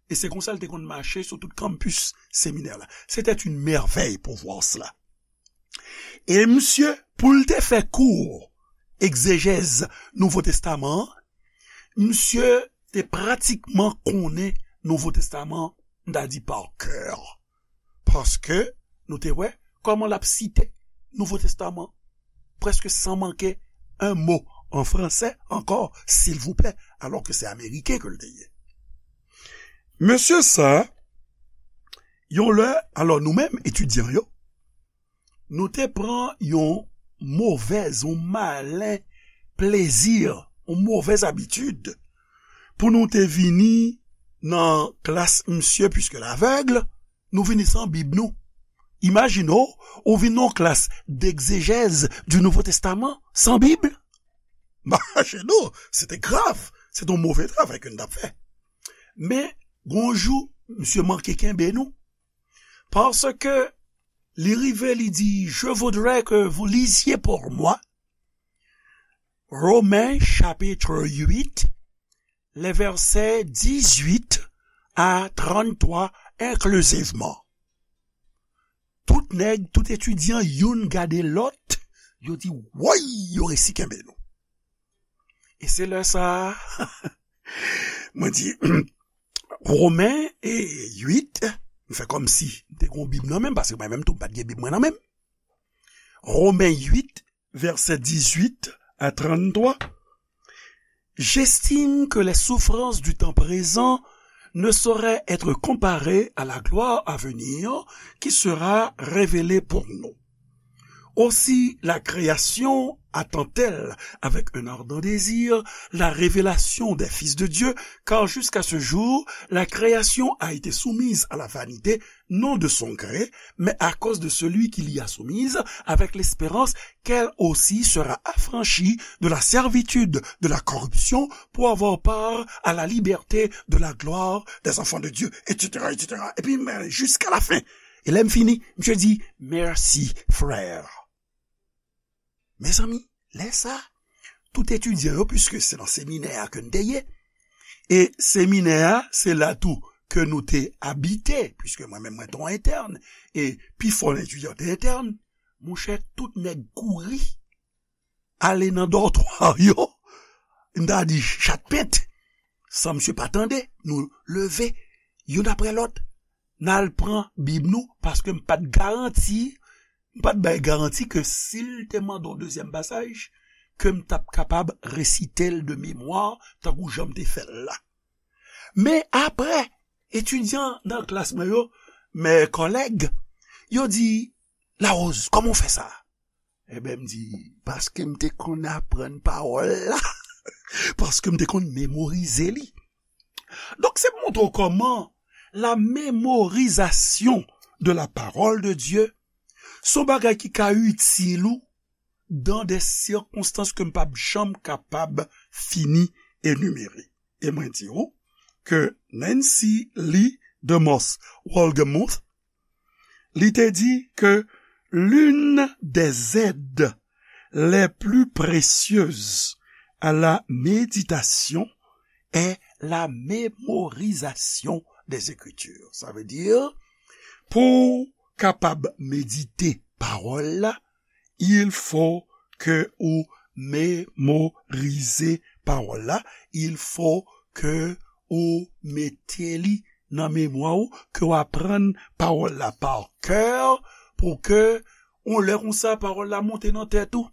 e se konsa l te konn mache sou tout kanpis seminè la. C'était une merveille pour voir cela. E misye, pou l te fè kou egzejèz Nouvo Testaman an, misye te pratikman konnen Nouvo Testaman, m ta di pa kè. Paske nou te wè kòman l ap site Nouvo Testaman prèske san manke un mot en français encore, s'il vous plaît, alò ke se ameriken ke l te ye. Mesye sa, yon lè, alò nou menm, etidyan yo, nou te pran yon movèz, yon malen plezi, yon movèz abitid, pou nou te vini nan klas misye, puisque l'aveugle, nou vini san Bib nou. Imajine w, ou vin nan yon klas d'exégèse du Nouveau Testament san Bib. Imajine w, se te grav, se te yon move travay ke n t ap fè. Men, gon jou, misye manke kenbe nou. Paske li rive, li di, "Je voudrais que vous lisiez pour moi Romains chapitre huit, les versets dix-huit à trente-trois inclusivement." Tout nèg, tout etidyan, youn gade lòt, yo di, "Woy, yo resi kenbe nou." E se lè sa a, mwen di, Women e uit, m fè kòmsi m te gen yon Bib nan men m, paske mwen menm tou, m pa t gen Bib mwen nan men m. Women uit, vèsè dizuit a trannntwa. J'estime que les souffrances du temps présent ne sauraient être comparées à la gloire à venir qui sera révélée pour nous. Aussi la création attend-elle avec un ardent désir la révélation des fils de Dieu, car jusqu'à ce jour, la création a été soumise à la vanité, non de son gré, mais à cause de celui qui l'y a soumise, avec l'espérance qu'elle aussi sera affranchie de la servitude de la corruption pour avoir part à la liberté de la gloire des enfants de Dieu, et cetera, et cetera. Epi, men, jiska lafen. E lè m fini, misye di, "Mèsi, frè." Mezanmi, lè sa, tout etidyan yo, piske se nan seminè a ke n te ye, e seminè a, se la tou ke nou te abite, piske mwen menm, mwen te yon entèn, e pifò nan etidyan te entèn, monchè, tout nèg kouri ale nan dòtwa yo, m ta di chat pent, san misye pa tande, nou leve, youn apre lòt, n al pran Bib nou, paske m pa t garanti, m pa t bay garanti ke si l te mande yon dezyèm pasaj, ke m t ap kapab resite l de memwa, tankou jan m te fè l la. Men apre, etidyan nan klas mwen yo, mes collègues, yo di, "Larose, kòman w fè sa?" Ebyen, m di, "Paske m te konn aprann pawòl la, paske m te konn memorize li." Donk, se pou montre w kòman la mémorisation de la parole de Dieu, se yon bagay ki ka itil ou dans des circonstances ke m p ap janm kapab fini enimere. E mwen di w ke Nancy Lee DeMoss Wolgemuth, li te di ke l'une des aides les plus précieuses à la méditation est la mémorisation des Écritures. Sa vle di, pou w kapab medite pawòl la, il faut que ou memorize pawòl la, il faut que ou mete li nan memwa w, ke w aprann pawòl la pa kè, pou ke yon lè konsa pawòl la monte nan tèt ou.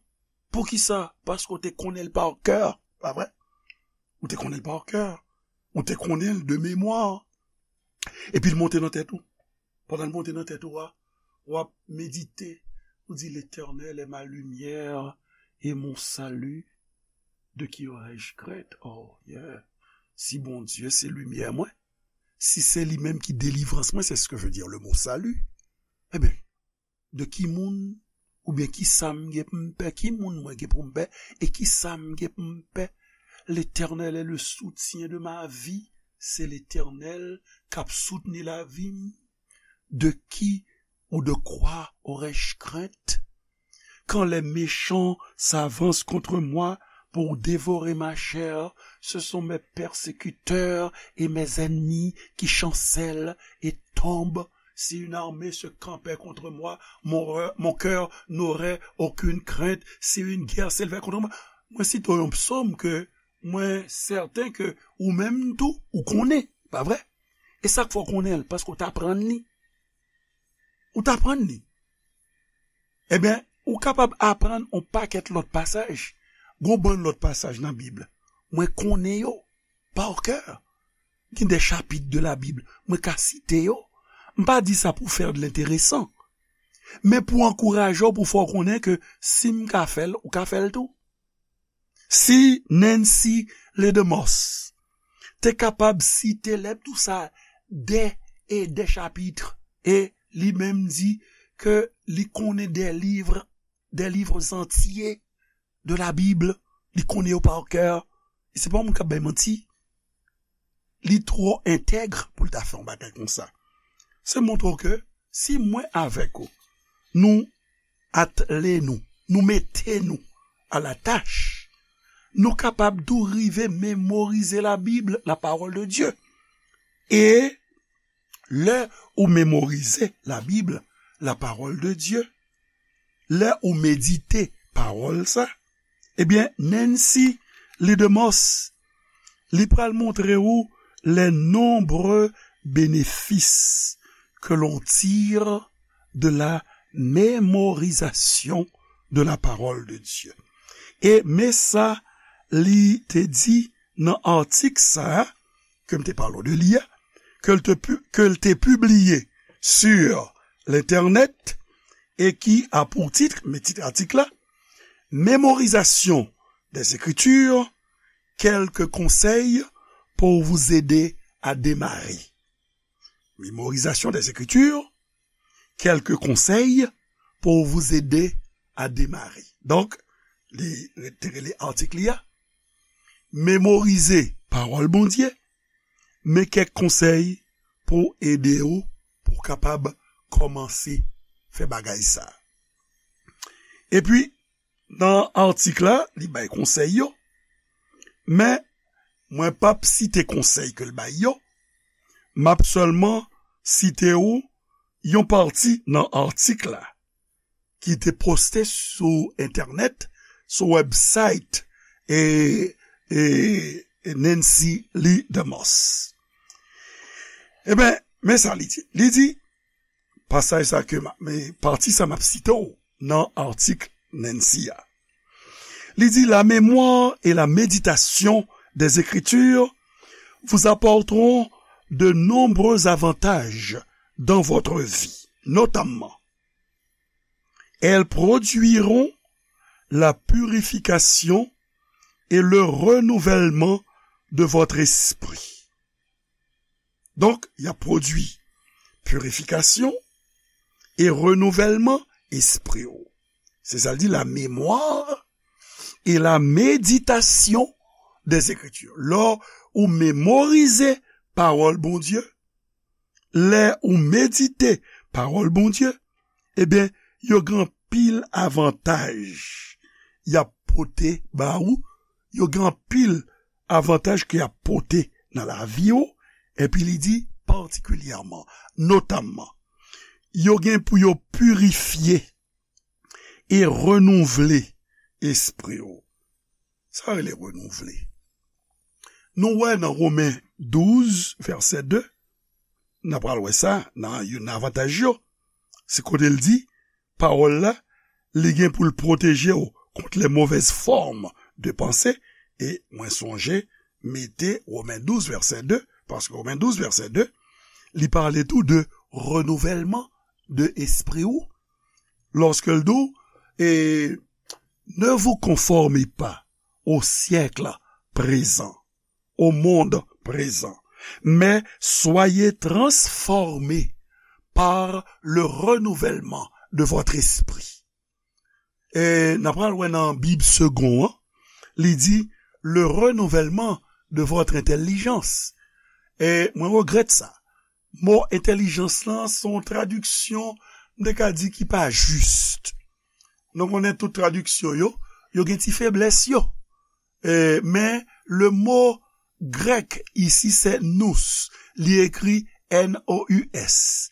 Poukisa? Paske w te konnen l pa kè, pa vre? Ou te konnen l pa kè. Ou te konnen l de memwa. Epi l monte nan tèt ou. Pandan l monte nan tèt ou a, w ap medite. Ou di, "L'Éternel est ma lumière et mon salut, de qui aurais-je crainte?" Oh, yeah. Si Bondye se limyè mwen, si se li menm ki delivrans mwen, c'est ce que veut dire le mot salut. Ebyen, de ki moun oubyen ki sa m gen pou m pè, ki moun mwen gen pou m pè, e ki sa m gen pou m pè? L'Éternel est le soutien de ma vie. Se Letènèl k ap soutni lavi m. De qui ou de quoi aurais-je crainte? Quand les méchants s'avancent contre moi pour dévorer ma chair, ce sont mes persécuteurs et mes ennemis qui chancellent et tombent. Si une armée se campait contre moi, mon, re- mon cœur n'aurait aucune crainte. Si une guerre s'élevait contre moi, mwen site yon psaume ke mwen sèten ke ou menm tou, ou konnen, pa vre? E sa k fè w konnen l, paske w t aprann li. Ou t aprann li. Ebyen, ou kapab aprann yon pakèt lòt pasaj. Gon bann lòt pasaj nan Bib. Mwen konnen yo pa kè. Gen de chapit de la Bib, mwen ka site yo. M pa di sa pou fè de lenteresan, men pou ankouraje w, pou fè w konnen ke si m ka fè l, ou ka fè l tou. Si Nancy Lee DeMoss te kapab site lèt tou sa de e de chapit, e li menm di ke li konnen de liv, de liv antye de la Bib, li konnen yo pa kè, e se pa yon moun k ap bay manti. Li twò entèg pou l ta fè yon bagay konsa. Se montre w ke si mwen avèk ou, nou atle nou, nou mete nou a la tach, nou kapab tou rive memorize la Bib, la parole de Dieu. E lè ou memorize la Bib, la parole de Dieu, lè ou medite pawòl sa, ebyen, Nancy Lee DeMoss, li pral montre ou les nombreux bénéfices que l'on tire de la mémorisation de la parole de Dieu. E men sa li te di nan atik sa a, ke m te pale w de li a, ke l te pu- ke l te pibliye sur l'internet, et qui a pour titre, men tit atik la, Mémorisation des Écritures, quelques conseils pour vous aider à démarrer. Mémorisation des Écritures, quelques conseils pour vous aider à démarrer. Donk, li te rele atik li a, Memorize pawòl Bondye, men kèk konsèy pou ede w pou w kapab kòmanse fè bagay sa. Epi, nan atik la, li bay konsèy yo, men mwen p ap site konsèy ke l bay yo, m ap sèlman site w yon pati nan atik la ki te poste sou entènèt, sou website e, e, e Nancy Lee DeMoss. Eben, men sa li di. Li di, pasaj sa ke m ap, men pati sa m ap site w nan atik Nancy a. Li di, la mémoire et la méditation des Écritures vous apporteront de nombreux avantages dans votre vie, notamment elles produiront la purification et le renouvellement de votre esprit. Donk, y ap pwodui pirifikasyon e renouvèlman espri w. Se sa l di, la mémoire et la méditation des Écritures. Lè ou memorize pawòl Bondye, lè ou medite pawòl Bondye, ebyen, yo gen anpil avantaj y ap pote ba ou, yo gen anpil avantaj ke y ap pote nan lavi w, epi li di patikilyèman, notamman, yo gen pou yo pirifye e renouvle espri w. Sa rele renouvle. Nou wè nan Women douz, vèsè de, n a pral wè sa nan youn nan avantaj yo. Se kote l di, pawòl la, li gen pou l pwoteje w kont les mauvaises formes de pensée. E mwen sonje mete Women douz, vèsè de, paske Women douz, vèsè de, li pale tou de renouvèlman de espri w. Lòske l di w, e, ne vous conformez pas au siècle présent, au monde présent, mais soyez transformés par le renouvellement de votre esprit. E n a pral wè nan Bib Segond an, li di, le renouvèlman de votre entèlijans. E mwen regrèt sa. Mo entèlijans lan se yon tradiksyon, m te ka di, ki pa jis. Nou konnen tout tradiksyon yo, yo gen ti feblès yo. E, men, le mo grèk isi se nous, li ekri N O U S.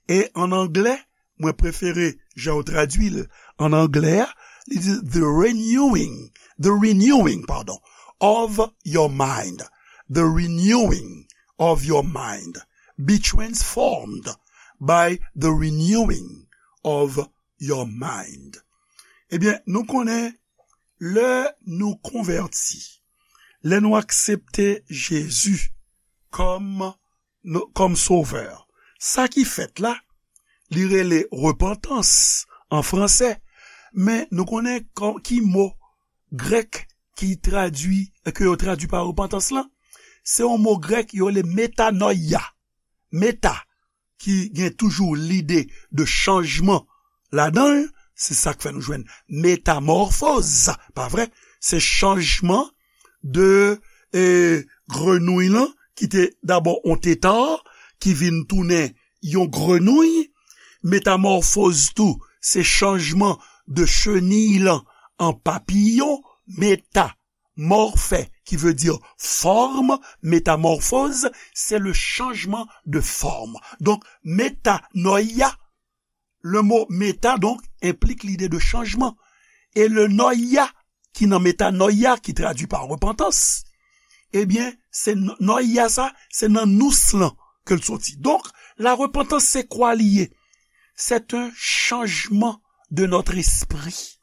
E an anglè, mwen prefere jan yo tradui l an anglè a, li di the renewing, the renewing, pardon, of your mind, the renewing of your mind, be transformed by the renewing of your mind. Ebyen, nou konnen lè nou konvèti, lè nou aksepte Jezi kòm nou, kòm sovè. Sa ki fèt la, li rele repantans an fransè, men nou konnen kò-, ki mo grèk ki tradui, ke yo tradui pa repantans lan? Se yon mo grèk yo rele metanoia. Meta, ki gen toujou lide de chanjman ladan l, se sa k fè nou jwenn metamòfoz, pa vre? Se chanjman de, e, grenouy lan, ki te dabò on teta, ki vin tounen yon grenouy. Metamòfoz tou, se chanjman de cheniy lan an papiyon. Meta, morphe, qui veut dire forme, métamorphose, c'est le changement de forme. Donc, metanoia, le mot meta, donc, implique l'idée de changement. Et le noia, ki nan metanoia, ki tradui pa repantans, ebyen, se n-, noia sa, se nan nous lan ke l soti. Donk, la repantans, se kwa li ye? C'est un changement de notre esprit.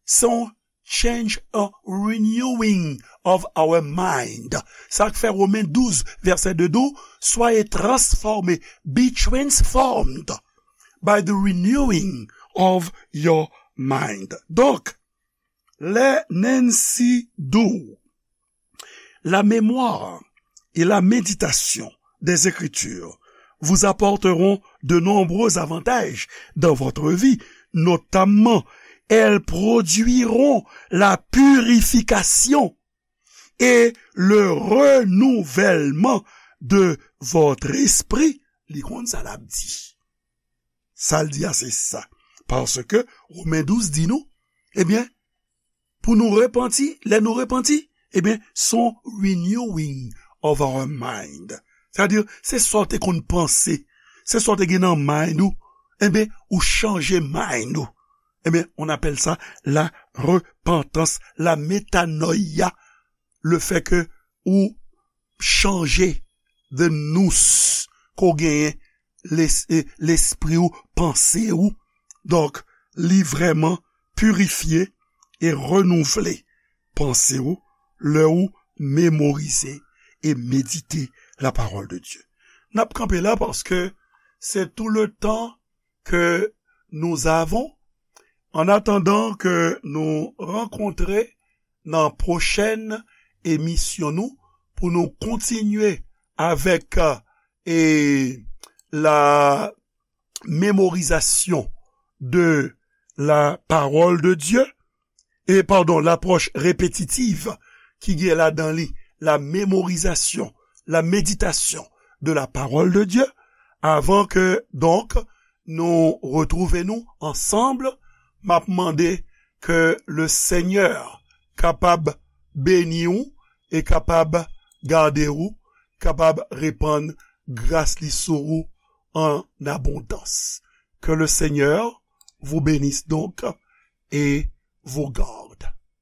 Se yon change, a renewing of our mind. Sa k fè Women douz, vèsè de di w, soyez transformés, be transformed by the renewing of your mind. Donc, les Nancy Doux, la mémoire et la méditation des Écritures vous apporteront de nombreux avantages dans votre vie, notamment elles produiront la purification et le renouvellement de votre esprit. Li konn sa l ap di. Sa l di a se sa. Paske Women douz di nou, ebyen, pou nou repanti, lè nou repanti, ebyen, se yon renewing of our mind. Sètadi, se sa w te konn panse, se sa w te gen nan mind ou, ebyen, ou chanje mind ou. Ebyen, on appelle ça la repentance, la metanoia, le fait que ou chanje the nous ke w genyen, les- eh, lespri ou, panse ou. Donk, li vrèman pirifye e renouvle panse ou lè ou memorize e medite la parole de Dieu. N ap kanpe la paske c'est tout le temps que nous avons. En attendant que nous rencontrer nan pwochèn emisyon nou pou nou kontinye avèk euh, e la mémorisation de la parole de Dieu, e padon, l'approche répétitive ki gen ladan li la mémorisation, la méditation de la parole de Dieu, avan ke donk nou retwouve nou ansanm, m ap mande ke le Seigneur kapab beni ou e kapab gade ou, kapab repann gras li sou ou en abondance. Que le Seigneur vous bénisse donc et vous garde.